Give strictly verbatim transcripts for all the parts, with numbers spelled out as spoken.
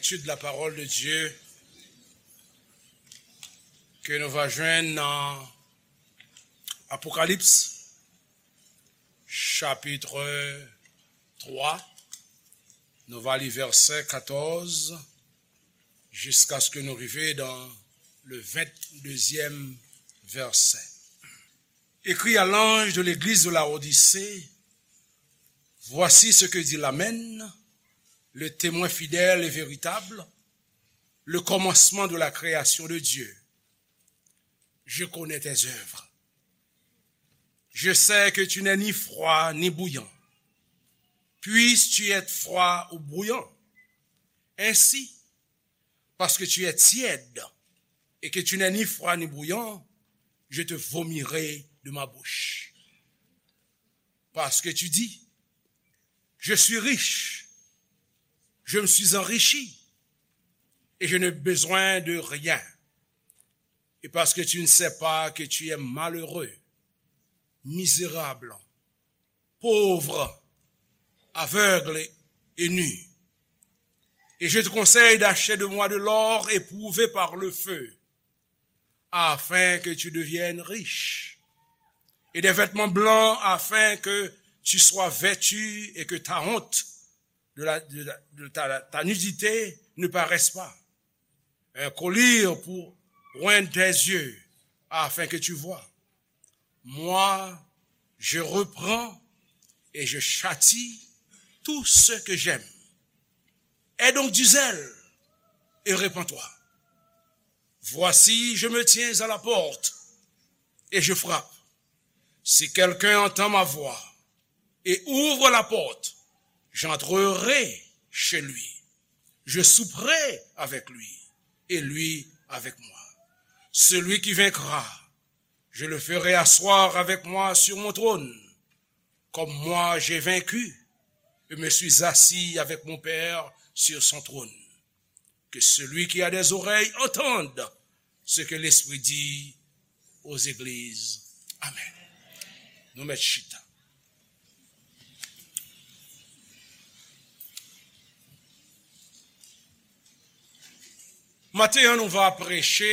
Étude de la parole de Dieu ke nou va jwenn nan Apokalips, chapitre trois. Nou va li vèsè katòz jiskaske nou rive dans le vingt-deuxième verset. Écris à l'ange de l'église de Laodicée, voici ce que dit l'Amen, le témoin fidèle et véritable, le commencement de la création de Dieu. Je connais tes œuvres. Je sais que tu n'es ni froid ni bouillant. Puisses-tu être froid ou bouillant. Ainsi, parce que tu es tiède et que tu n'es ni froid ni bouillant, je te vomirai de ma bouche. Parce que tu dis, je suis riche, je me suis enrichi, et je n'ai besoin de rien. Et parce que tu ne sais pas que tu es malheureux, misérable, pauvre, aveugle et nu. Et je te conseille d'acheter de moi de l'or éprouvé par le feu, afin que tu deviennes riche, et des vêtements blancs, afin que tu sois vêtu et que ta honte de la, de la, de ta, ta nudité ne paraisse pas. Un collier pour oindre tes yeux, afin que tu vois. Moi, je reprends et je châtie tout ce que j'aime. Aie donc du zèle et repens-toi. Voici, je me tiens à la porte et je frappe. Si quelqu'un entend ma voix et ouvre la porte, j'entrerai chez lui. Je souperai avec lui et lui avec moi. Celui qui vaincra, je le ferai asseoir avec moi sur mon trône, comme moi j'ai vaincu et me suis assis avec mon Père sur son trône. Que celui qui a des oreilles entende ce que l'Esprit dit aux églises. Amen. Nou mèt chita. Maten an, nou va preche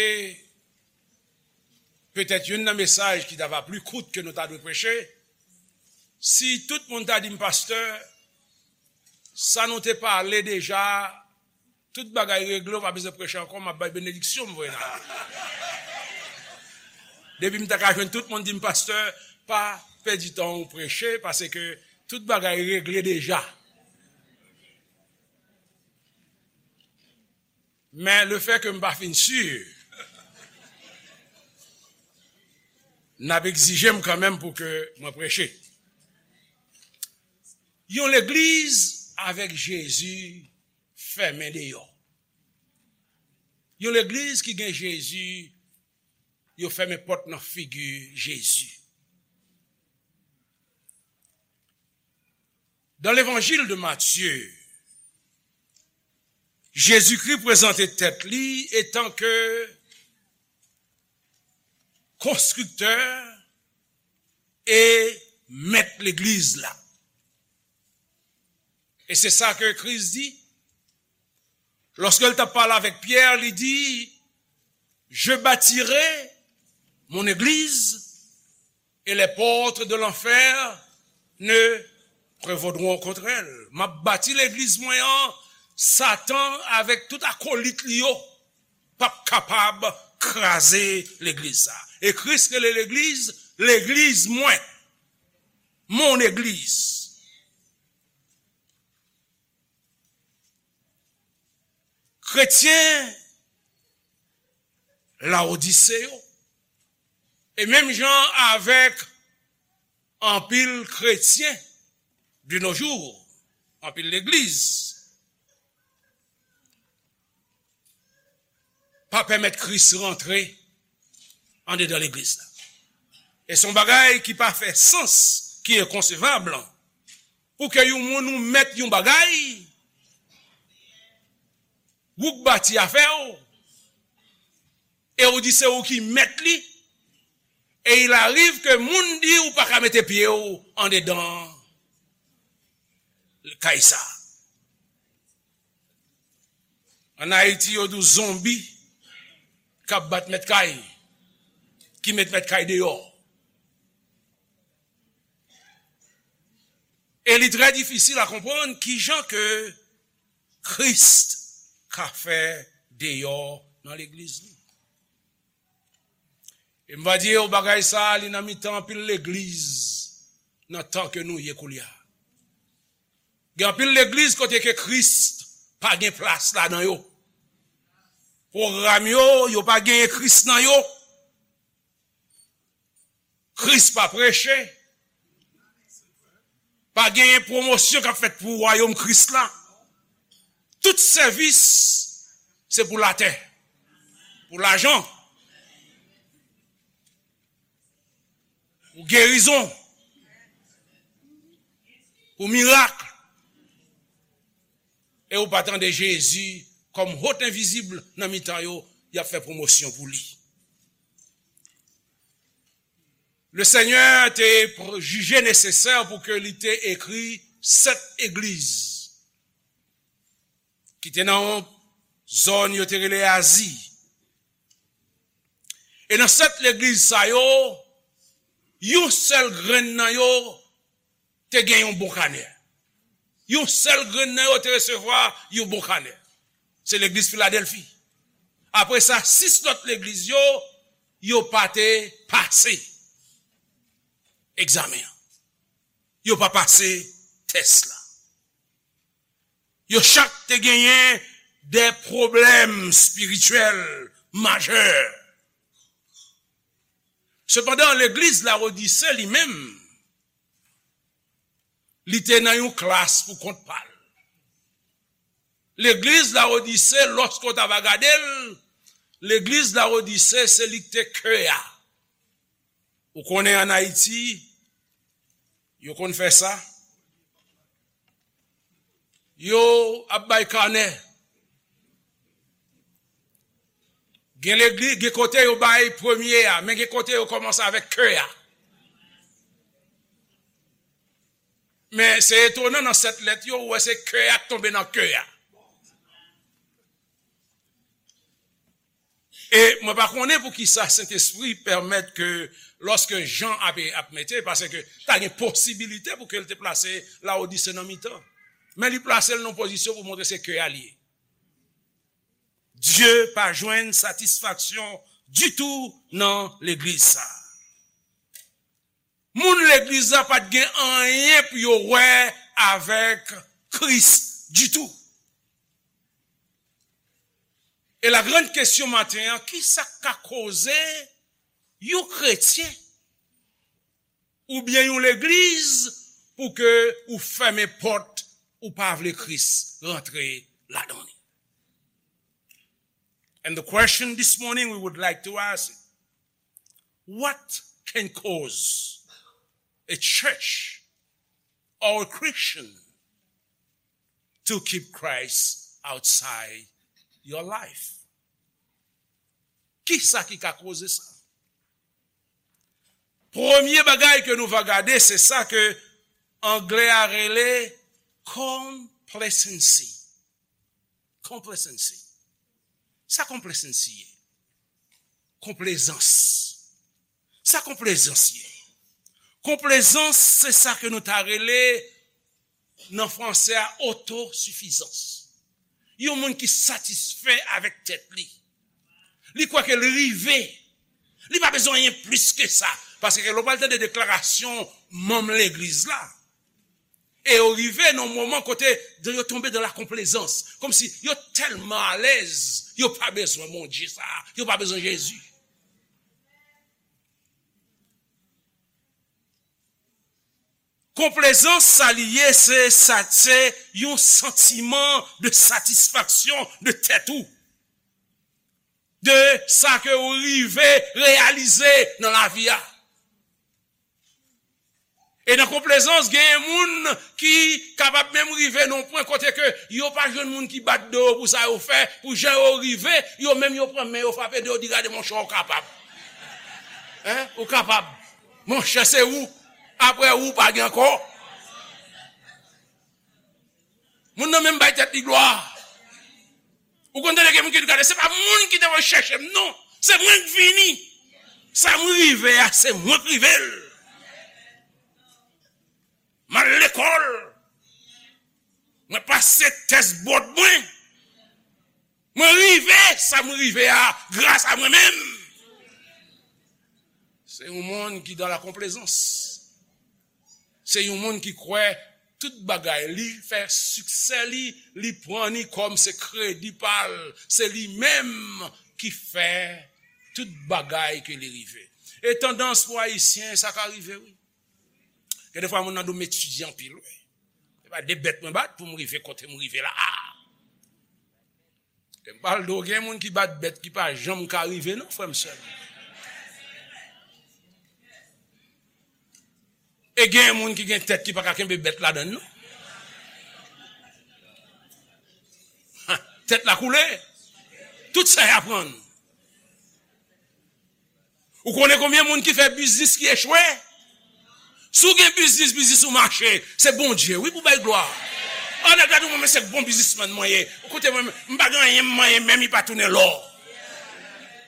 petèt youn nan mesaj ki ta va pli kout ke nou ta dwe preche. Si tout moun ta di m, pastè, sa nou te pale deja, tout bagay regle, ou pa bezwen preche ankò, m ap bay benediksyon m voye nan. Depi m ta ka jwenn tout moun di m, pastè, pa pèdi tan ou preche, paske tout bagay regle deja. Men lefètke m pa fin si, n ap egzije m kanmenm pou ke mwen preche. Yon legliz avèk Jezi fèmen deyò. Yon legliz ki gen Jezi, yo fèmen pòt nan figi Jezi. Dans l'évangile de Matthieu, Jezikri prezante tèt li etan ke konstriktè e mèt legliz la. E se sa ke Kris di. Lòske l t ap pale avèk Pyè, li di, je bâtirai mon église et les portes de l'enfer ne prévaudront contre elle. M ap bati legliz mwen an, Satan avèk tout akolit li yo p ap kapab kraze legliz sa. E Kris rele legliz, legliz mwen, mon église. Kretyen Lawodise yo, e menm jan avèk anpil kretyen de nos jours, anpil legliz, pa pèmèt Kris rantre andedan legliz la. E se yon bagay ki pa fè sans, ki enkonsevab, pou ke yon moun ou mèt yon bagay, ou k bati afè w, e ou di se ou ki mèt li, e il arrive ke moun di ou pa ka mete pye w andedan kay sa. Ann Ayiti, yo di w zonbi k ap bat mèt kay, ki met mèt kay deyò. E li trè difisil a konprann kijan ke Kris ka fè deyò nan legliz li. E m va di yo, bagay sa a, li nan mitan anpil legliz nan tan ke nou ye koulye a. Gen anpil legliz kote ke Kris pa gen plas ladan yo. Pwogram yo, yo pa genyen Kris nan yo. Kris pa preche. Pa genyen pwomosyon k ap fèt pou wayòm Kris la. Tout sèvis, se pou latè, pou lajan, pou gerizon, pou mirak. E ou pa tande Jezi kòm hòt envizib nan mitan yo, y ap fè pwomosyon pou li. Le Senyè te pr-, jije nesesè pou ke li te ekri sèt egliz ki te nan yon zòn yo te rele Azi. E nan sèt legliz sa yo, yon sèl grenn nan yo te gen yon bon kanè. Yon sèl grenn nan yo te resevwa yon bon kanè. Se legliz Filadèlfi. Apre sa, sis lòt legliz yo, yo pa te pase egzamen an. Yo pa pase tès la. Yo chak te genyen de pwoblèm espirityèl majè. Sepandan, legliz Lawodise li menm, li te nan yon klas pou kont pa l. Legliz Lawodise, lòske w ta va gade l, legliz Lawodise, se li k te kè a. Ou konnen ann Ayiti, yo konn fè sa. Yo ap bay kanè. Gen legliz, gen kote yo bay premye a, men gen kote yo kòmanse avèk kè a. Men se etonan, nan sèt lèt yo, ou wè se kè a k tonbe nan kè a. E mwen pa konnen poukisa Sentespri pèmèt ke lòske Jan ap, ap mete, paske ta gen posibilite pou ke l te plase Lawodise nan mitan. Men li plase l nan pozisyon pou montre se kè a l ye. Dye pa jwenn satisfaksyon ditou nan legliz sa. Moun legliz la pa t gen anyen pou yo wè avèk Kris ditou. E la grande question maten an, kisa k ka koze yon kretyen oubyen yon legliz pou ke ou fèmen pòt, ou pa vle Kris rantre ladan li? And the question this morning we would like to ask, what can cause a church or a Christian to keep Christ outside your life? Kisa ki ka koze sa? Premye bagay ke nou va gade, se sa ke anglè a rele complacency. Complacency. Sa complacency ye? Konplezans. Sa konplezans ye? Konplezans, se sa ke nou ta rele nan franse a, otosifizans. Yon moun ki satisfè avèk tèt li. Li kwè ke li rive. Li pa bezwen anyen plis ke sa. Paske lè w pral tande deklarasyon manm legliz la, e yo rive nan yon moman kote yo tonbe dans la complaisance. Kòmsi yo tèlman alèz, yo pa bezwen Bondye sa, yo pa bezwen Jezi. Konplezans, sa li ye, se sa, se yon santiman de satisfaksyon de tèt ou, de sa ke ou rive reyalize nan lavi a. E nan konplezans, gen moun ki kapab menm rive nan yon pwen kote ke yo pa jwenn moun ki bat do yo pou sa yo fè, pou jan yo rive, yo menm yo pran men yo frape do yo, di, "Gade, monchè, ou kapab. Hein? Ou kapab. Monchè, se ou. Apre ou, pa gen ankò." Moun nan menm bay tèt li glwa. Ou konn tande gen moun ki di, "Gade, se pa moun ki te voye chèche m, non. Se mwen k vini. Sa m rive a, se mwen k rive l." M al lekòl. Mwen pase tès bòd mwen. Mwen rive, sa m rive a, gras a mwen menm. Se yon moun ki dans la complaisance. Se yon moun ki kwè tout bagay li fè, siksè li, li pran li kòm se kredi pa l. Se li menm ki fè tout bagay ke li rive. E tandans pou Ayisyen, sa ka rive, wi. Gen de fwa moun nan di w m etidye anpil, wi. Se pa de bèt mwen bat pou m rive kote m rive la a. E m pral di w, gen moun ki bat bèt ki pa janm ka rive, non, frè m, sè m. E gen moun ki gen tèt ki pa ka kenbe bèt ladan l, non. Ha, tèt la koule. Tout sa y aprann. Ou konnen konbyen moun ki fè biznis ki echwe? Si w gen biznis, biznis ou mache, se Bondye, wi, pou bay glwa. An, nèg la di, "Mwen, men se bon biznismann mwen ye. Koute mwen, m pa gen anyen m manyen, menm li pa tounen lò."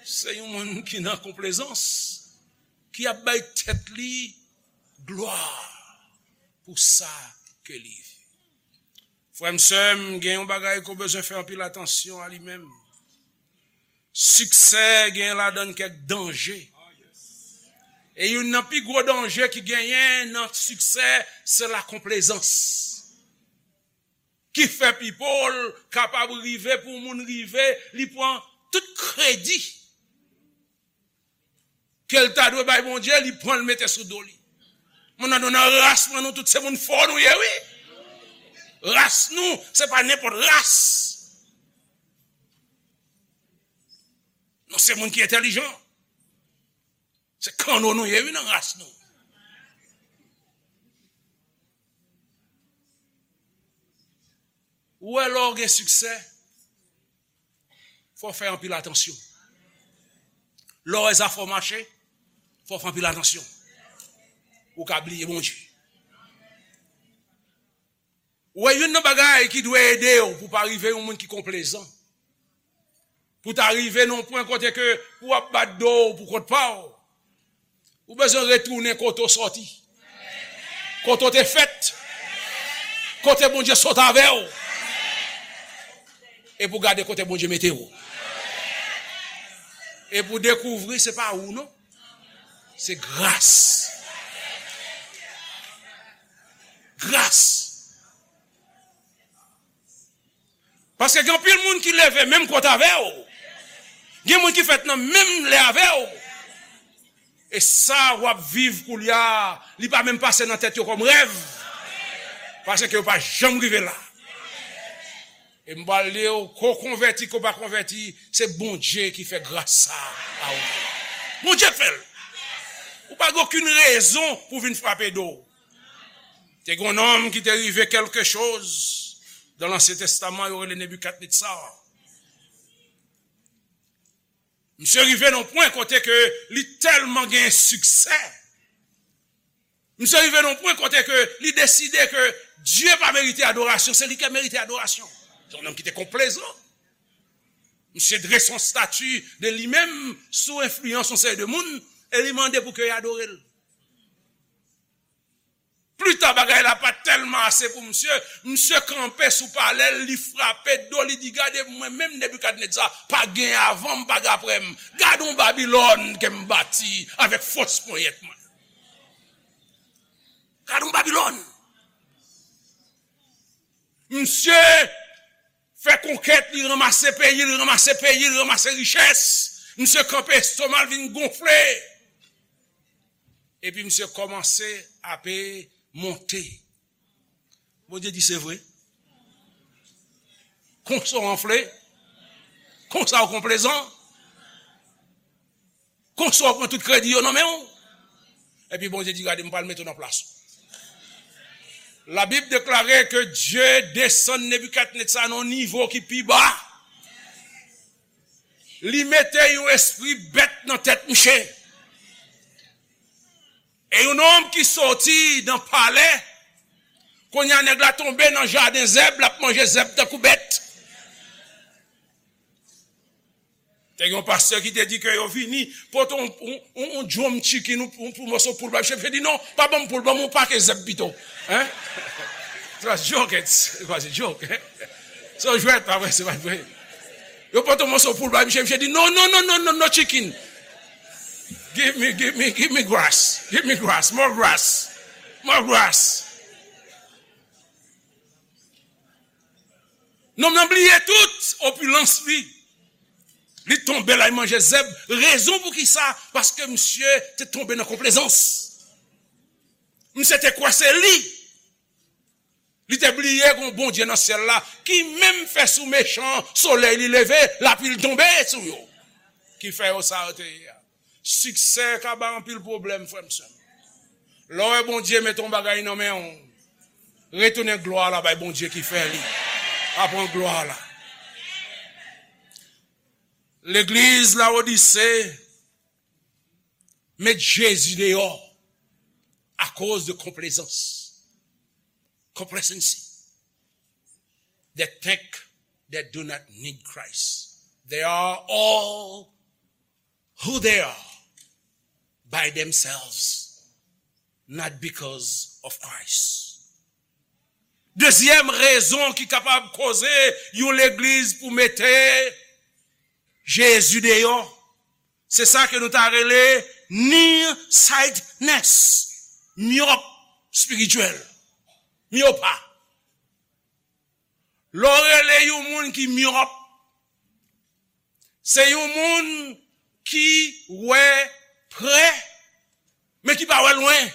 Se yon moun ki nan konplezans, ki ap bay tèt li glwa pou sa ke li. Frè m, sè m, gen yon bagay ke w bezwen fè anpil atansyon a li menm. Siksè gen ladan l kèk danje. E youn nan pi gwo danje ki genyen nan siksè, se lakonplezans. Ki fè people kapab rive pou moun rive, li pran tout kredi ke l ta dwe bay Bondye, li pran l mete sou do li. Moun nan, nou nan ras mwen, nou tout se moun fò nou ye, wi. Ras nou, se pa nenpòt ras. Nou se moun ki entèlijan. Se kanno nou ye, wi, nan ras nou. Ou wè, lè w gen siksè, fò w fè anpil atansyon. Lè w wè zafè w mache, fò w fè anpil atansyon. Ou ka bliye Bondye. Ou wè, youn nan bagay ki dwe ede w pou w pa rive yon moun ki konplezan, pou w ta rive nan yon pwen kote ke ou ap bat do w pou kont pa w, ou bezwen retounen kote w sòti, kote w te fèt, kote Bondye sot avè w, e pou w gade kote Bondye mete w. E pou w dekouvri se pa ou, non. Se gras. Gras. Paske gen anpil moun ki leve menm kote avè w. Gen moun ki fèt nan menm lè avè w. E sa w ap viv koulye a, li pa menm pase nan tèt yo kòm rèv. Paske yo pa janm rive la. E m pral di w, ke w konvèti, ke w pa konvèti, se Bondye ki fè gras sa a ou. Bondye k fè l. Ou pa gen okenn rezon pou w vin frape do w. Te gen yon nonm ki te rive quelque chose dans l'Ancien Testament, yo rele Nebikadnetza. Misye rive nan yon pwen kote ke li tèlman gen siksè. Misye rive nan yon pwen kote ke li deside ke Dye pa merite adorasyon, se li ki merite adorasyon. Se yon nonm ki te konplezan. Misye drese yon stati de li menm sou enfliyans yon seri de moun e li mande pou ke y adore l. Pli ta, bagay la pa t tèlman ase pou misye. Misye kanpe sou palè l, li frape do, li di, "Gade, mwen menm, Nebikadnetza, pa gen avan m, pa gen apre m. Gade yon Babilòn ke m bati avèk fòs ponyèt mwen. Gade yon Babilòn." Misye fè konkèt, li ranmase peyi, li ranmase peyi, li ranmase richès. Misye kanpe, estoma l vin gonfle. Epi misye kòmanse ape monte. Bondye di, "Se vre? Konsa w anfle? Konsa w konplezan? Konsa w pran tout kredi yo nan men w?" Epi Bondye di, "Gade, m pral mete w nan plas ou." Labib deklare ke Dye desann Nebikadnetza nan yon nivo ki pi ba. Li mete yon espri bèt nan tèt misye. E yon nonm ki soti nan palè, kounye a nèg la tonbe nan jaden zèb, l ap manje zèb tankou bèt. Te gen yon pastè ki te di ke yo vini pote yon, yon, yon, yon dwòm chicken, yon, yon, yon mòso poul bay misye. Misye di, "Non, pa ban m poul, ban m yon pake zèb pito." Hein? Se pa joke, se pa joke, hein? Se yon jwèt, pa vre, se pa vre. Yo pote yon mòso poul bay misye, misye di, "Non, non, non, non, non, no chicken. Give me, give me, give me grass. Give me grass, more grass, more grass." Nonm nan bliye tout opilans li. Li tonbe la, li manje zèb. Rezon pou ki sa? Paske misye te tonbe nan konplezans. Misye te kwè se li. Li te bliye gon Bondye nan syèl la ki menm fè sou mechan, solèy li leve, lapli tonbe sou yo. Ki fè yo sa yo te ye a. Siksè ka bay anpil pwoblèm, frè m, sè m. Lè w wè Bondye mete yon bagay nan men w, retounen glwa la bay Bondye ki fè li. Pa pran glwa la. Legliz Lawodise met Jezi deyò akoz de konplezans. Complacency. They think they do not need Christ. They are all who they are by themselves, not because of Christ. Dezyèm rezon ki kapab koze yon legliz pou mete Jezi deyò, se sa ke nou ta rele nearsightedness, myòp espirityèl, myopa. Lè w rele yon moun ki myòp, se yon moun ki wè pre, men ki pa wè lwen.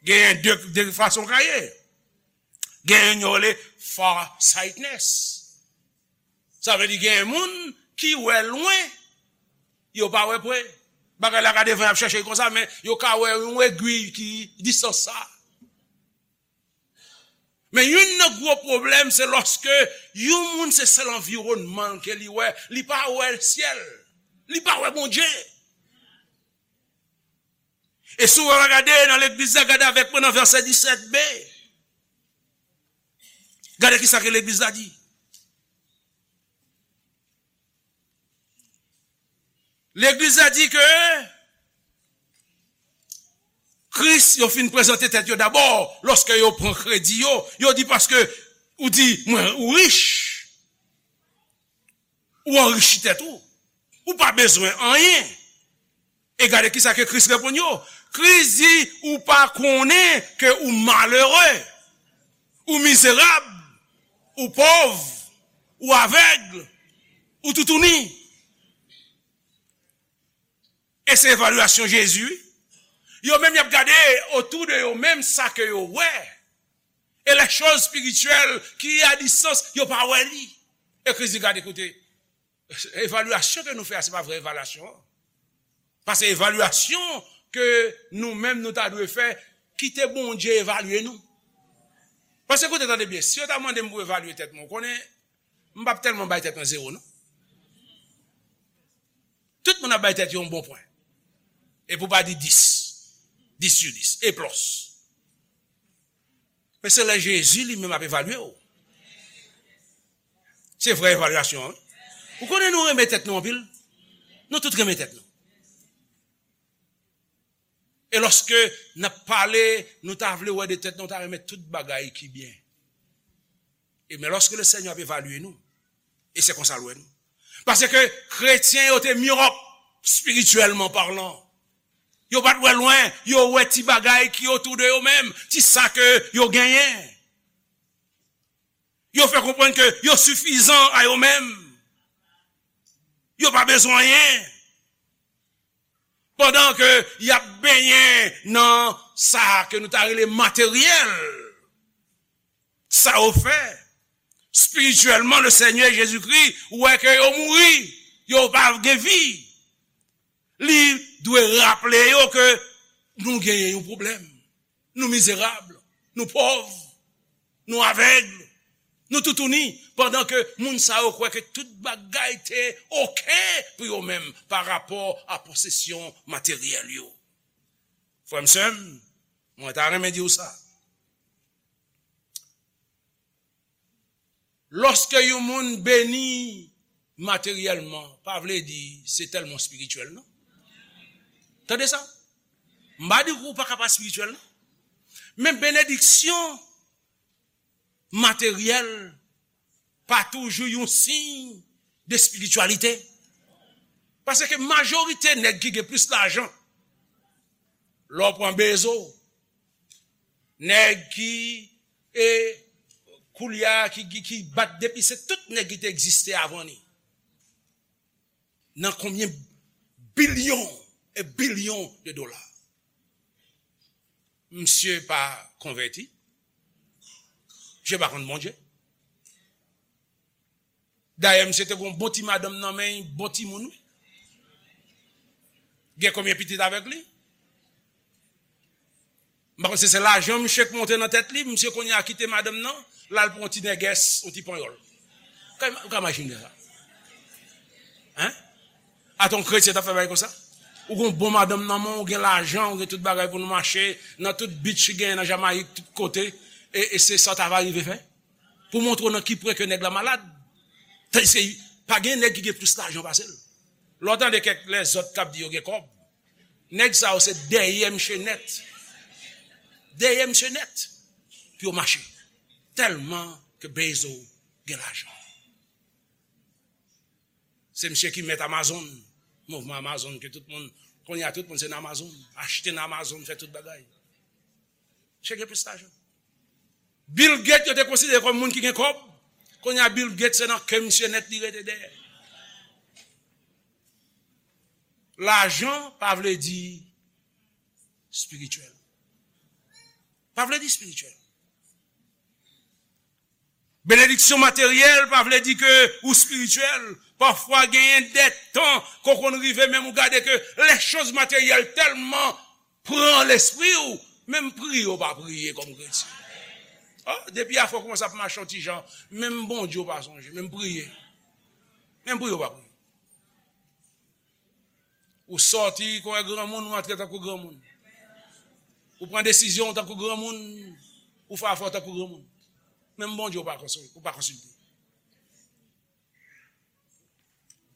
Genyen de, de fason ka ye. Genyen yo rele farsightedness. Sa vle di genyen moun ki wè lwen, yo pa wè pre. Bagay la ka devan y ap chèche l konsa, men yo ka wè yon egwi ki distans sa. Men youn nan gwo pwoblèm, se lòske yon moun se sèl anviwònman l ke li wè, li pa wè syèl, li pa wè Bondye. E si w gade nan legliz la, gade avèk mwen nan vèsè disèt b. Gade kisa ke legliz la di. Legliz la di ke Kris, yo fin prezante tèt yo dabò, lòske yo pran kredi yo, yo di, paske ou di, mwen, ou rich, ou anrichi tèt ou, ou pa bezwen anyen. E gade kisa ke Kris reponn yo. Kris di, ou pa konnen ke ou malere, ou mizerab, ou pòv, ou avèg, ou toutouni. E se evalyasyon Jezi, wi. Yo menm, y ap gade otou de yo menm sa ke yo wè. E les choses spirituelles ki a distance, yo pa wè li. E Kris di, gade, koute, evalyasyon ke nou fè a, se pa vrè evalyasyon an. Paske evalyasyon ke nou menm nou ta dwe fè, kite Bondye evalye nou. Paske koute, tande byen, si yo ta mande m pou evalye tèt mwen, ou konnen, m p ap tèlman bay tèt mwen zewo, non. Tout moun ap bay tèt yo yon bon pwen. E pou pa di dis. Dis sou dis. E plis. Men se lè Jezi li menm ap evalye w. Se vrè evalyasyon an, wi. Ou konnen nou renmen tèt nou anpil. Nou tout renmen tèt nou. E lòske n ap pale, nou ta vle wè de tèt nou, nou ta renmen tout bagay ki byen. E men lòske le Senyè ap evalye nou, e se konsa l wè nou. Paske kretyen yo te myòp, espirityèlman palan. Yo pa t wè lwen, yo wè ti bagay ki otou de yo menm, ti sa ke yo genyen. Yo fè konprann ke yo sifizan a yo menm. Yo pa bezwen anyen. Pandan ke y ap benyen nan sa ke nou ta rele materyèl, sa yo fè, espirityèlman, le Senyè Jezikri wè ke yo mouri, yo pa gen vi. Li dwe raple yo ke nou genyen yon pwoblèm. Nou mizerab, nou pòv, nou avèg, nou toutouni, pandan ke moun sa yo kwè ke tout bagay te oke pou yo menm pa rapò a posesyon materyèl yo. Frè m, sè m, mwen ta renmen di w sa. Lòske yon moun beni materyèlman pa vle di se tèlman espirityèl, non. Tande sa. M pa di w pa ka pa espirityèl, non. Men benediksyon materyèl pa toujou yon siy de espirityalite. Paske majorite nèg ki gen plis lajan, lè w pran Bezo, nèg ki, e, koulye a, ki, ki, ki bat depi, se tout nèg ki te egziste avan li. Nan konbyen bilyon e bilyon de dola. Misye pa konvèti. Misye pa konn Bondye. Dayè, misye te gon bon ti madanm nan men, bon timoun, wi. Gen konbyen pitit avèk li? M pa konn si se lajan misye k monte nan tèt li, misye kounye a kite madanm nan, l al pran yon ti nègès, yon ti panyòl. Ou ka, ou ka imajine sa? Hein? Ata yon kretyen t ap fè bagay konsa? Ou gon bon madanm nan men w, ou gen lajan, ou gen tout bagay pou nou mache, nan tout beach ki genyen nan Jamayik, tout kote, e, e se sa w ta va rive fè? Pou montre w nan ki pwen ke nèg la malad. Tandiske pa gen nèg ki gen plis lajan pase l. Lè w tande kèk lèzòt k ap di yo gen kòb, nèg sa yo se dèyè misye nèt. Dèyè misye nèt pou yo mache. Tèlman ke Bezo gen lajan. Se misye ki mèt Amazon, mouvman Amazon ke tout moun, kounye a tout moun se nan Amazon, achte nan Amazon, fè tout bagay. Misye gen plis lajan. Bill Gates, yo te konsidere kòm moun ki gen kòb. Kounye a, Bill Gates, se nan ke misye nèt li rete dèyè. Lajan pa vle di espirityèl. Pa vle di espirityèl. Benediksyon materyèl pa vle di ke ou espirityèl. Pafwa, genyen de tan ke w konn rive menm ou gade ke lè choz materyèl tèlman pran lespri w, menm priye w pa priye kòm kretyen. Ah, depi afè w kòmanse ap mache yon ti jan, menm Bondye w pa sonje, menm priye. Menm priye w pa priye. Ou sòti, ou wè granmoun, ou antre tankou granmoun. Ou pran desizyon tankou granmoun, ou fè afè w tankou granmoun. Menm Bondye w pa konsol-, ou pa konsilte.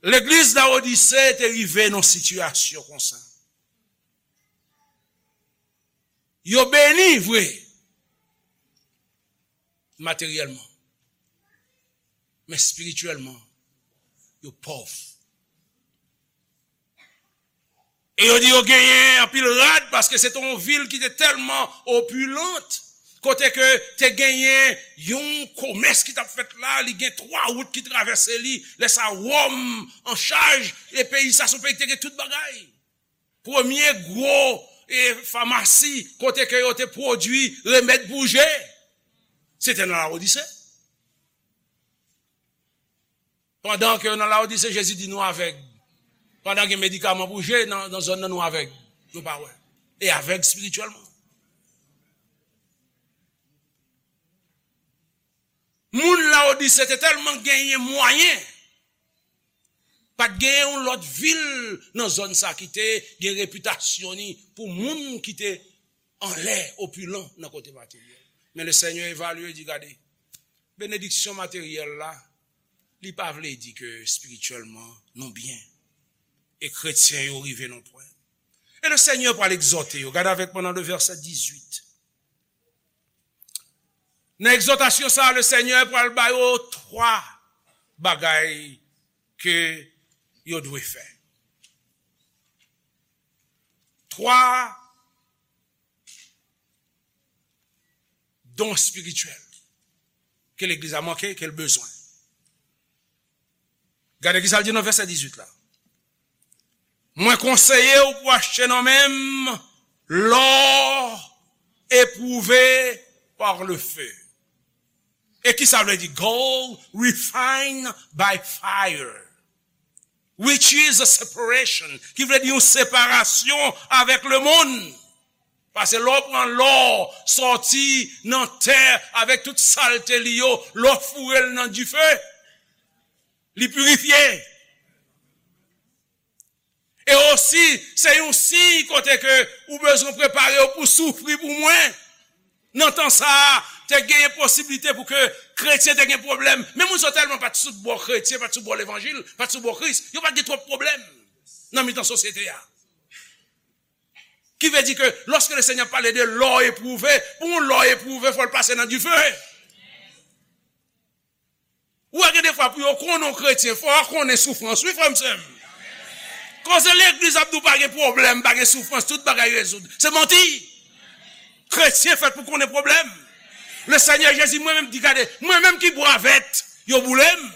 Legliz Lawodise te rive nan sitiyasyon konsa. Yo beni vre, materyèlman, men espirityèlman, yo pòv. E yo di yo genyen anpil rad, paske se te yon vil ki te tèlman opilant, kote ke te genyen yon komès ki t ap fèt la, li gen twa wout ki travèse li, lè sa Wòm an chaj, e peyi sa se yon peyi ki te gen tout bagay. Premye gwo, e, famasi kote ke yo te pwodui remèd pou je, se te nan Lawodise. Pandan ke nan Lawodise, Jezi di nou avèg. Pandan gen medikaman pou je nan, nan zòn nan, nou avèg. Nou pa wè. E avèg espirityèlman. Moun Lawodise te tèlman genyen mwayen, pa t genyen yon lòt vil nan zòn sa ki te gen repitasyon ni pou moun ki te anlè, opilan nan kote materyèl. Men Lesenyè evalye, di, gade, benediksyon materyèl la, li pa vle di ke espirityèlman nou byen. E kretyen yo rive nan pwen. E Lesenyè pral egzòte yo. Gade avèk mwen nan le vèsè dizuit. Nan egzòtasyon sa a, Lesenyè pral ba yo twa bagay ke yo dwe fè. Twa don espirityèl ke legliz la manke, ke l bezwen. Gade ki sa l di nan vèsè dizuit la. Mwen konseye w pou achte nan men m lò epwouve par le feu. E ki sa vle di? Gold refined by fire, which is a separation, ki vle di yon separasyon avèk lemonn. Paske lè w pran lò sòti nan tè avèk tout salte li yo, lè w foure l nan dife, li pirifye. E osi, se yon siy kote ke ou bezwen prepare w pou soufri pou mwen. Nan tan sa a, te genyen posiblite pou ke kretyen te gen pwoblèm. Men moun sa yo tèlman pa t sou bò kretyen, pa t sou bò levanjil, pa t sou bò Kris, yo pa t gen twòp pwoblèm nan mitan sosyete a. Ki vle di ke lòske Lesenyè pale de lò epwouve, pou yon lò epwouve, fò l pase nan dife. Ou wè gen defwa pou yo konnen yon kretyen, fò w konnen soufrans, wi, frè m, sè m. Koze legliz ap di w pa gen pwoblèm, pa gen soufrans, tout bagay rezoud. Se manti. Kretyen fèt pou konnen pwoblèm. Lesenyè Jezi, mwen menm, di gade, mwen menm ki bwa vèt, yo boule m.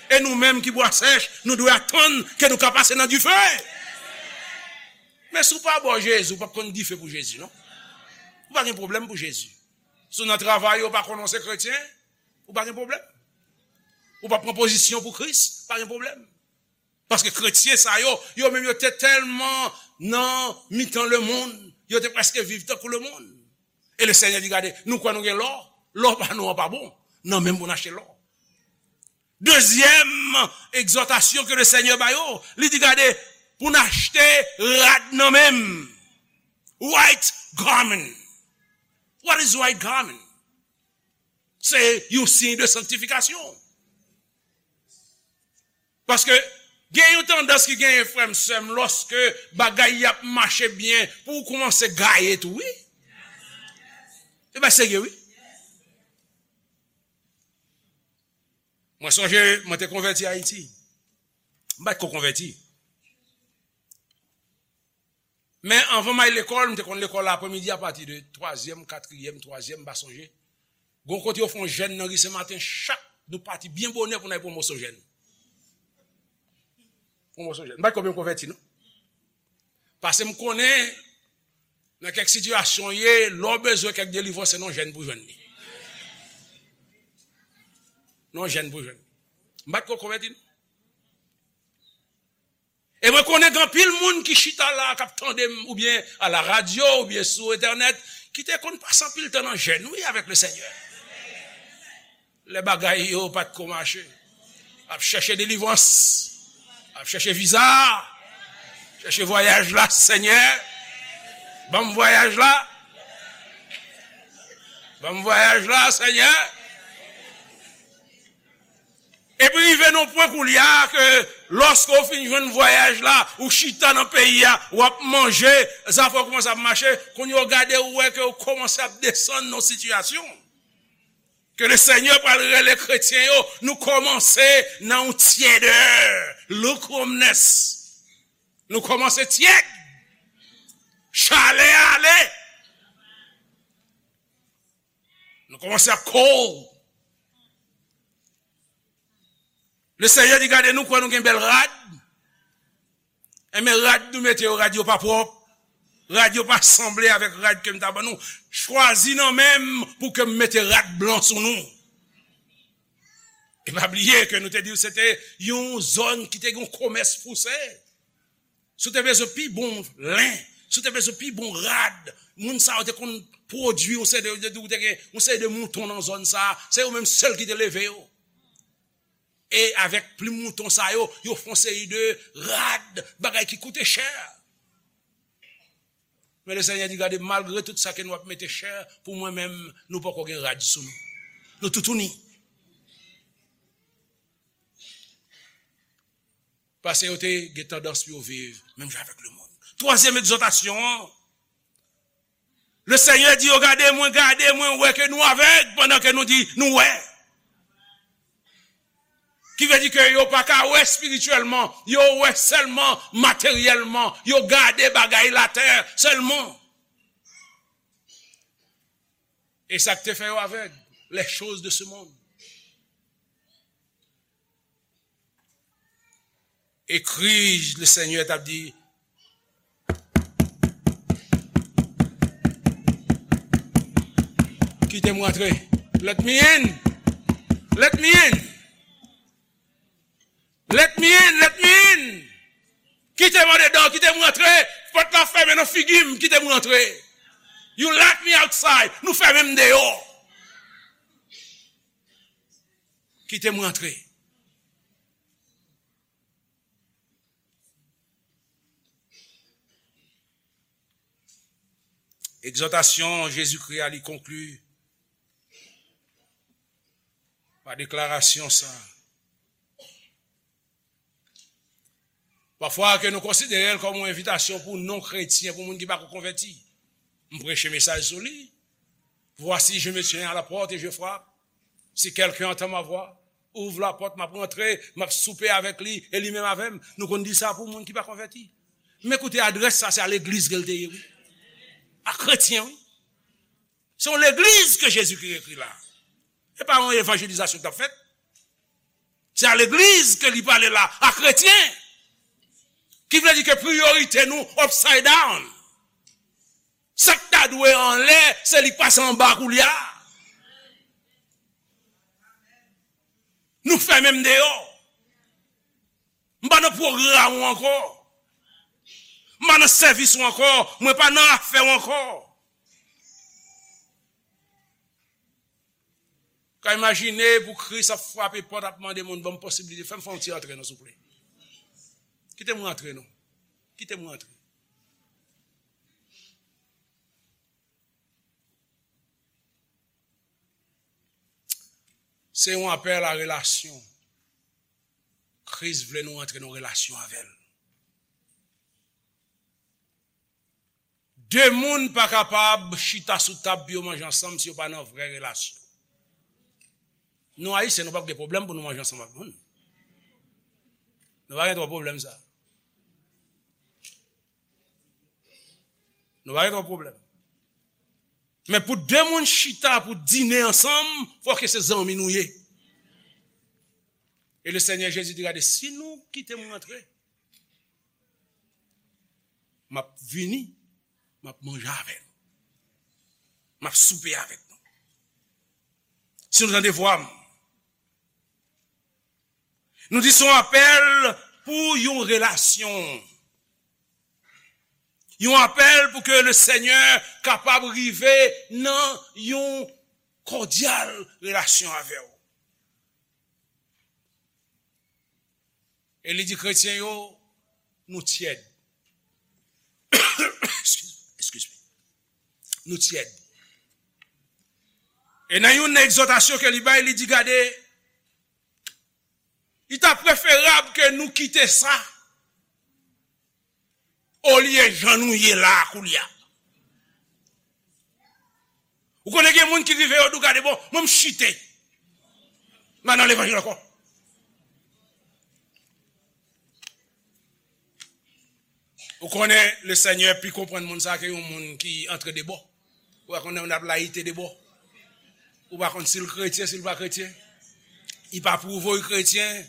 E nou menm ki bwa sèch, nou dwe atann ke nou ka pase nan dife. Men si w pa bò Jezi, ou p ap konn dife pou Jezi, non. Ou pa gen pwoblèm pou Jezi. Si w nan travay ou pa konnen w se kretyen, ou pa gen pwoblèm. Ou pa pran pozisyon pou Kris, pa gen pwoblèm. Paske kretyen sa yo, yo menm yo te tèlman nan mitan lemonn, yo te prèske viv tankou lemonn. E Lesenyè di, gade, nou kwè nou gen lò, lò pa nou an pa bon, nan menm pou n achte lò. Dezyèm egzòtasyon ke Lesenyè ba yo, li di, gade, pou n achte rad nan menm. White garment. What is white garment? Se yon siy de sanktifikasyon. Paske gen yon tandans ki genyen, frè m, sè m, lòske bagay y ap mache byen, pou w kòmanse gaye tou, wi. Se pa serye, wi. Mwen sonje, mwen te konvèti Ayiti. M pa t ko konvèti. Men anvan m al lekòl, m te konn lekòl aprèmidi apati de twazyèm, katriyèm, twazyèm, m pa sonje. Gon kote yo fè yon jèn nan ri Senmaten, chak nou pati byen bonè pou n al pran moso jèn. Pran moso jèn. M pa t ko byen konvèti, non. Paske m konnen, nan kèk sitiyasyon w ye, lè w bezwen kèk delivrans, se nan jèn pou jwenn li. Nan jèn pou jwenn li. M pa t ko konvèti, non. E mwen konnen gen anpil moun ki chita la, k ap tande m, oubyen a la radyo, oubyen sou entènèt, ki te konn pase anpil tan nan jèn, wi, avèk Lesenyè. Lè bagay yo pa t ko mache. Ap chèche delivrans. Ap chèche viza. Chèche vwayaj la, Senyè. Ban m vwayaj la. Ban m vwayaj la, Senyè. Epi rive nan pwen koulye a ke lòske w fin jwenn vwayaj la, ou chita nan peyi a, w ap manje, zafè w kòmanse ap mache, kounye a w gade, ou wè ke w kòmanse ap desann nan sitiyasyon. Ke Lesenyè pral rele kretyen yo, nou kòmanse nan yon tyèdè, lukewarmness. Nou kòmanse tyèd. Chalè a ale. Nou kòmanse ap cold. Lesenyè di, gade, nou kwè nou gen bèl rad. Enben, rad nou mete yo, rad yo pa pwòp. Rad yo pa sanble avèk rad ke m ta ban nou. Chwazi nan men m pou ke m mete rad blan sou nou. E pa bliye ke nou te di w se te yon zòn ki te gen yon komès pouse. Si w te bezwen pi bon len, si w te bezwen pi bon rad, moun sa yo te konn pwodui yon seri de, de, de, te gen yon seri de mouton nan zòn sa, se yo menm sèl ki te leve yo. E avèk plim mouton sa yo, yo fè yon seri de rad, bagay ki koute chè. Men Lesenyè di, gade, malgre tout sa ke nou ap mete chè, pou mwen menm, nou poko gen rad sou nou. Nou toutouni. Paske yo te gen tandans pou yo viv menm jan avèk lemonn. Twazyèm egzòtasyon an, Lesenyè di yo, gade mwen, gade mwen, wè ke nou avèg pandan ke nou di nou wè. Ki vle di ke yo pa ka wè espirityèlman, yo wè sèlman materyèlman, yo gade bagay latè sèlman. E sa k te fè yo avèg, les choses de ce monde. E kri Lesenyè t ap di, kite m rantre. Let me in. Let me in. Let me in. Let me in. Kite m andedan, kite m rantre. Pòt la fèmen nan figi m, kite m rantre. You lock me outside. Nou fèmen m deyò. Kite m rantre. Egzòtasyon Jezikri a, li konkli, Pa deklarasyon sa. Pafwa ke nou konsidere l kòm yon envitasyon pou non-kretyen, pou moun ki pako konvèti. M preche mesaj sou li. Voici, je me tiens à la porte et je frappe. Si quelqu'un entend ma voix, ouvre la porte, m ap rantre, m ap soupe avèk li, e li menm avè m. Nou konn di sa pou moun ki pa konvèti. Men koute, adrès sa, se a legliz ke l te ye, wi. A kretyen, wi. Se yon legliz ke Jezikri ekri la. E pa yon evanjelizasyon k t ap fèt. Se a legliz ke li pale la, a kretyen. Ki vle di ke priyorite nou upside down. Sa k ta dwe anlè, se li k pase anba koulye a. Nou fèmen m deyò. M pa nan pwogram ou ankò. M pa nan sèvis ou ankò. Mwen pa nan afè ou ankò. Ka imajine pou Kris ap frape pòt, ap mande moun, "Ban m posiblite, fè m fè yon ti antre non, souple. Kite m rantre non. Kite m rantre." Se yon apèl a relasyon. Kris vle nou antre nan relasyon avè l. De moun pa kapab chita sou tab pou yo manje ansanm si yo pa nan vrè relasyon. Nou Ayisyen, nou p ap gen pwoblèm pou nou manje ansanm ak moun. Nou pa gen twòp pwoblèm sa. Nou pa gen twòp pwoblèm. Men pou de moun chita pou dine ansanm, fò ke se zanmi nou ye. E le Senyè Jezi di, "Gade, si nou kite m rantre, m ap vini, m ap manje avè nou. M ap soupe avèk nou." Si nou tande vwa m, nou di se yon apèl pou yon relasyon. Yon apèl pou ke le Senyè kapab rive nan yon kòdyal relasyon avè w. E li di kretyen yo, nou tyèd. Excuse, excuse me. Nou tyèd. E nan yon egzòtasyon ke li bay, li di, "Gade, li ta preferab ke nou kite sa, olye jan nou ye la a koulye a." Ou konnen gen moun ki rive yo di w, "Gade, bon, mwen m chite. M pa nan levanjil ankò." Ou konnen le Senyè pi konprann moun sa ke yon moun ki antre de bò. Ou pa konn moun ap layite de bò. Ou pa konn si l kretyen, si l pa kretyen. Li pa pwouve w kretyen.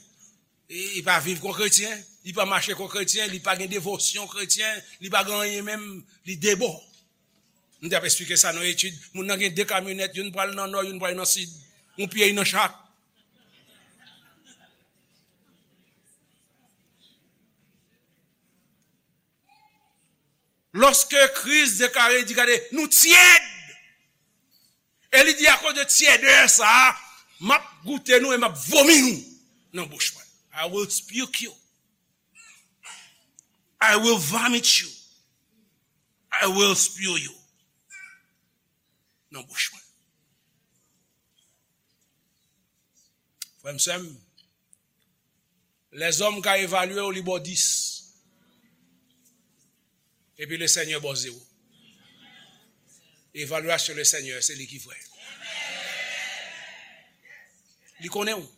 Li, li pa viv kon kretyen. Li pa mache kon kretyen. Li pa gen devosyon kretyen. Li pa gen anyen menm. Li de bò. M te ap eksplike sa nan etid. Moun nan gen de kamyonèt, youn pral nan nò, youn pral nan sid. Yon pye nan chak. Lòske Kris deklare, li di, "Gade, nou tyèd." E li di, "Akoz de tyèdè sa a, m ap goute nou e m ap vomi nou nan bouch mwen." I will puke you. I will vomit you. I will spew you nan bouch mwen. Frè m, sè m, lèzòm ka evalye w, li ba w dis. Epi le Senyè ba w zewo. Evalyasyon le Senyè, se li ki vrè. Li konnen w.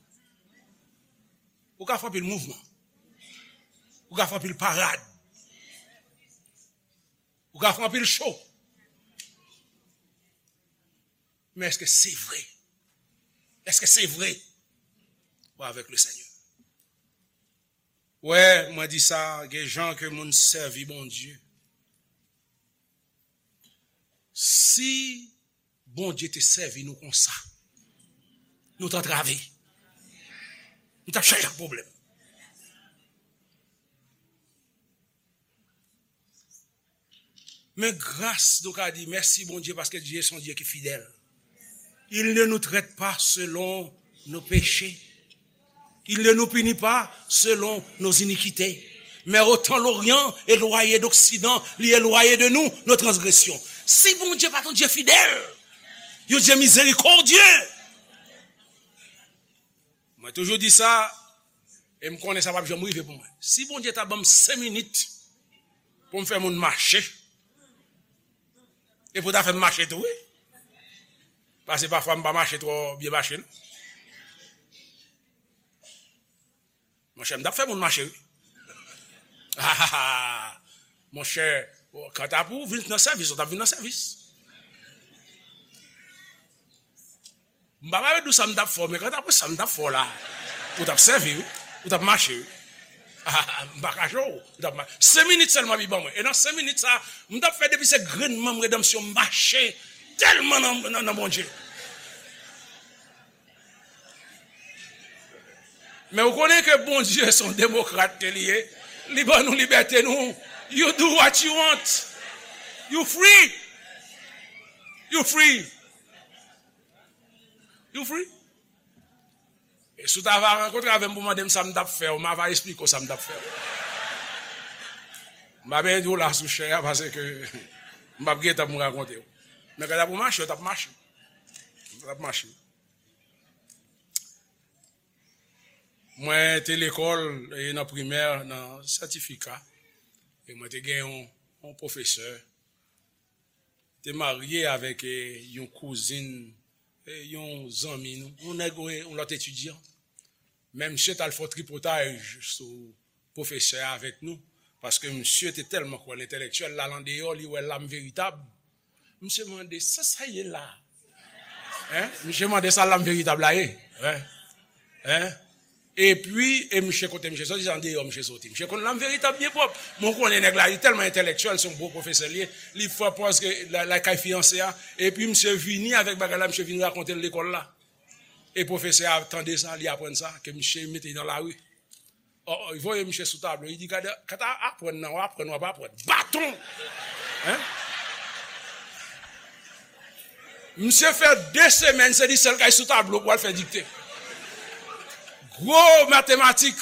Ou ka fè anpil mouvman. Ou ka fè anpil parad. Ou ka fè anpil show. Men èske se vre? Èske se vre? Ou avèk le Senyè. Wè, mwen di sa, gen jan ke moun sèvi Bondye. Si Bondye te sèvi nou konsa, nou t antrave. Nou t ap chaje ak pwoblèm. Men gras, nou ka di, mèsi Bondye, paske Dye se yon Dye ki fidèl. Il ne nous traite pas selon nos péchés. Il ne nous punit pas selon nos iniquités. Mais autant l'Orient éloigné d'Occident, li elwaye de nou nos transgressions. Si Bondye pa t yon Dye fidèl, yon Dye mizerikòdye, Mwen toujou di sa, e m konnen sa p ap janm rive pou mwen. Si Bondye ta ban m senk minit pou m fè moun mache, e pou ta fè m mache tou, wi. Paske pafwa m pa mache twò byen mache, non. Monchè, m t ap fè moun mache, wi. Monchè, kanta pou w vin nan sèvis, ou t ap vin nan sèvis. M pa pale de sa m t ap fè w, men kanta pou sa m t ap fè w la, ou t ap sèvi, wi. Ou t ap mache, wi. M pa kache w, ou t ap mache. Senk minit sèlman li ban mwen. E nan senk minit sa, m t ap fè depi se grenn manm redanmsyon m mache tèlman nan, nan, nan Bondye. Men ou konnen ke Bondye se yon demokrat ke li ye. Li ban nou libète nou. You do what you want. You free. You free. You free. E si w ta va rankontre avè m pou mande m sa m t ap fè w, m a va esplike w sa m t ap fè w. M pa benyen di w la sou chè a paske m p ap gen tan pou m rakonte w. Men kanta pou mache, w t ap mache. W t ap mache. Mwen te lekòl e nan primè, nan sètifika, e mwen te gen yon, yon pwofesè, te marye avèk, e, yon kouzin, e, yon zanmi nou, yon nèg, e, yon lòt etidyan. Men misye t al fè yon tripotay sou pwofesè a avèk nou, paske misye te tèlman kwè nan entèlektyèl, l al andeyò, li wè lam veritab. Misye mande, "Sa sa ye la?" Hein? Misye mande, "Sa lam veritab la ye?" Hein? Hein? Epi, e misye kote misye soti, se andeyò misye soti. Misye konn lam veritab byen pwòp. Mwen konnen nèg la, li tèlman entèlektyèl, se yon bon pwofesè li ye. Li fè pòz ke la, lakay fiyanse a. Epi misye vini avèk bagay la, misye vin rakonte l lekòl la. E pwofesè a tande sa, li aprann sa, ke misye mete nan lari. Ò, ò, li voye misye sou tablo. Li di, "Gade, kanta aprann nan, w aprann, w ap aprann." Baton! Hein? Misye fè de semèn, se li sèl k al sou tablo pou al fè dikte. Gwo matematik.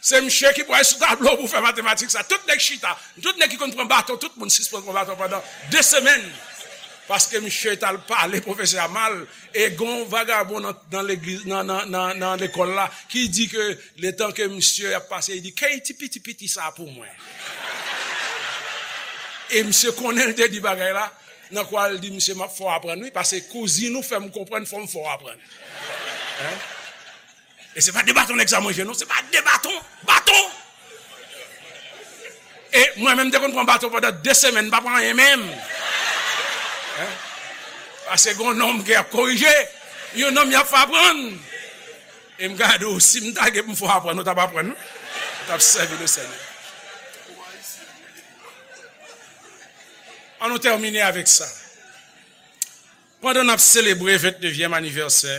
Se misye ki pral sou tablo pou fè matematik sa. Tout nèg chita. Tout nèg ki konn pran baton, tout moun sispann pran baton pandan de semèn. Paske misye t al pale pwofesè a mal. E gon vagabon nan, nan legliz, nan, nan, nan, nan lekòl la, ki di ke letan ke misye ap pase, li di, "Kay ti piti piti sa pou mwen." E misye konnen l te di bagay la, nan kwa l di, "Misye, m ap fè w aprann, wi, paske kouzin ou fè m konprann, fò m fè w aprann." Hein? E se pa de baton nèg sa manje, non, se pa de baton, baton! E mwen menm, m te konn pran baton pandan de semèn, m pa pran anyen menm. Hein? Paske gon nonm ki ap korije, yon nonm y ap fè aprann. E m gade w, si m ta gen pou m fè w aprann, ou t ap aprann, wi. Ou t ap sèvi Lesenyè. Ann nou tèmine avèk sa. Pandan n ap selebre vennnevyèm anivèsè,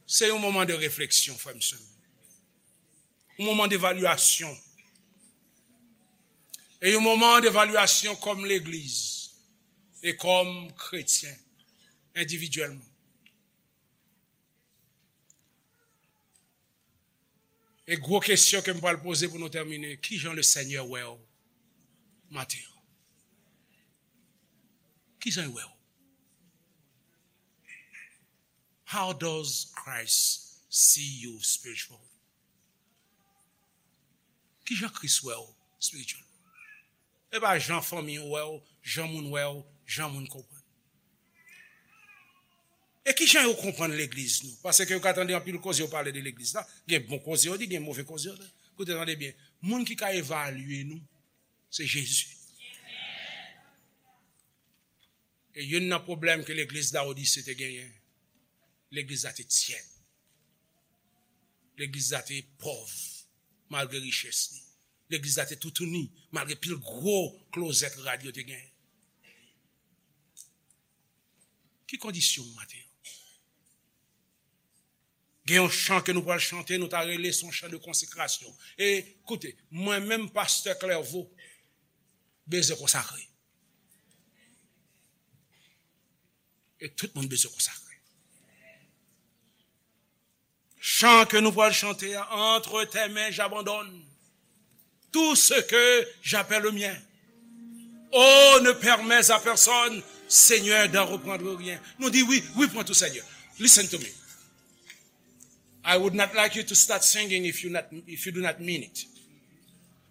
se yon moman de refleksyon, frè m, sè m. Yon moman devalyasyon. E yon moman devalyasyon kòm legliz e kòm kretyen, endividyèlman. E gwo kesyon ke m pral poze pou nou tèmine, kijan Lesenyè wè w maten an? Kijan l wè w? How does Christ see you spiritually? Kijan Kris wè w spiritually? E pa jan fanmi w wè w, jan moun wè w, jan moun konprann. E kijan yo konprann legliz nou? Paske yo ka tande anpil koze yo pale de legliz la. Gen bon koze yo di, gen move koze yo di. Koute, tande byen. Moun ki ka evalye nou, se Jezi. E youn nan pwoblèm ke legliz Lawodise te genyen, legliz la te tyèb. Legliz la te pòv, malgre richès li. Legliz la te toutouni, malgre pil gwo klozèt rad yo te genyen. Ki kondisyon w maten an? Gen yon chan ke nou pral chante, nou ta rele se yon chan de konsekrasyon. E, koute, mwen menm, pastè Clerveau, bezwen konsakre. E tout moun bezwen konsakre. Chan ke nou pral chante a, entre tes mains j'abandonne tout ce que j'appelle le mien. Oh, ne permets à personne, Seigneur, d'en reprendre rien. Nou di wi, wi, pran tou, Senyè. Listen to me. I would not like you to start singing if you not, if you do not mean it.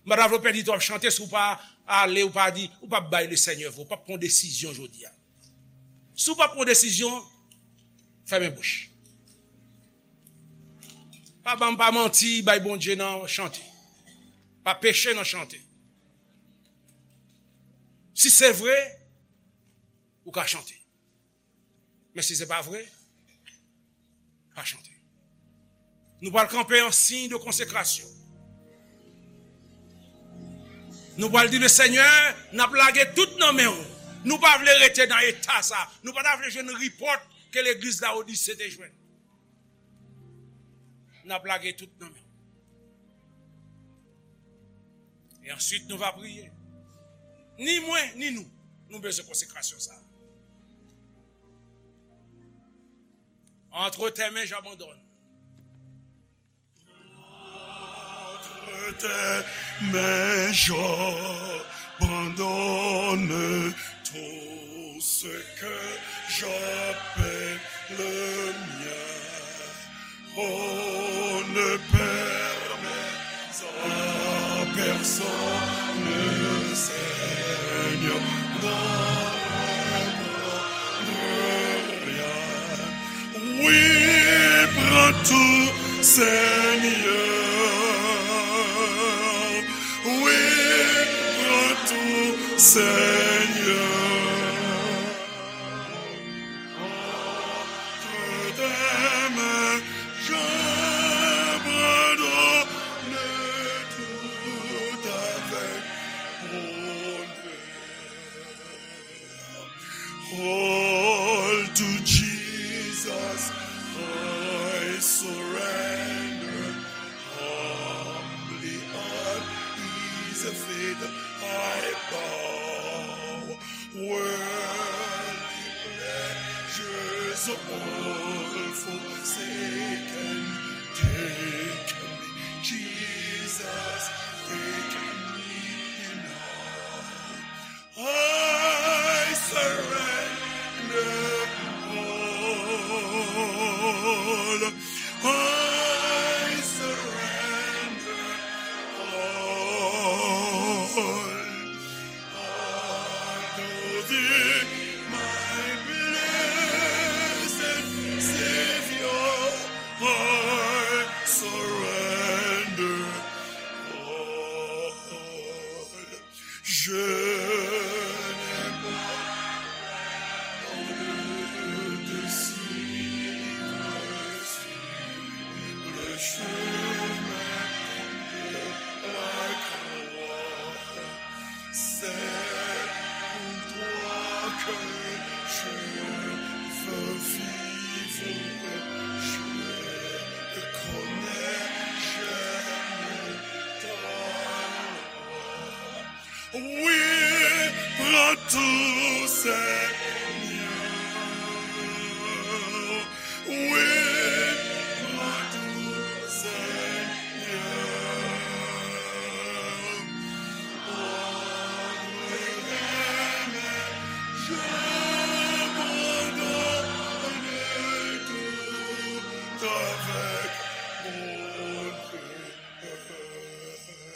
M pa ta vle w pèdi tan w ap chante si w pa ale, ou pa di, ou pa bay Lesenyè vre, ou pa pran desizyon jodi a. Si w pa pran desizyon, fèmen bouch. Pa ban m pa manti, bay Bondye nan chante. Pa peche nan chante. Si se vre, ou ka chante. Men si se pa vre, pa chante. Nou pral kanpe an siy de konsekrasyon. Nou pral di, Lesenyè, n ap lage tout nan men w. Nou pa vle rete nan eta sa. Nou pa ta vle jwenn ripòt ke legliz Lawodise te jwenn. N ap lage tout nan men w. E answit, nou va priye. Ni mwen, ni nou, nou bezwen konsekrasyon sa. Entre tes mains, j'abandonne. Entre tes mains, j'abandonne tout ce que j'appelle le mien. Oh, ne permets à personne, Seigneur, de reprendre rien. Oui, prends tout, Seigneur. Oui, prends tout, Seigneur. Entre tes mains, j'abandonne tout avec bonheur. All to Jesus I surrender. Humbly at his feet I bow. Worldly pleasures all forsaken, take me, Jesus, take me now. I surrender all. I surrender all. Unto thee, my blessed Savior, I surrender all. Je n'ai pas honte de te suivre sur le chemin de la croix. C'est pour toi que je veux vivre, je connais, j'aime ta loi. Oui, prends tout, Seigneur.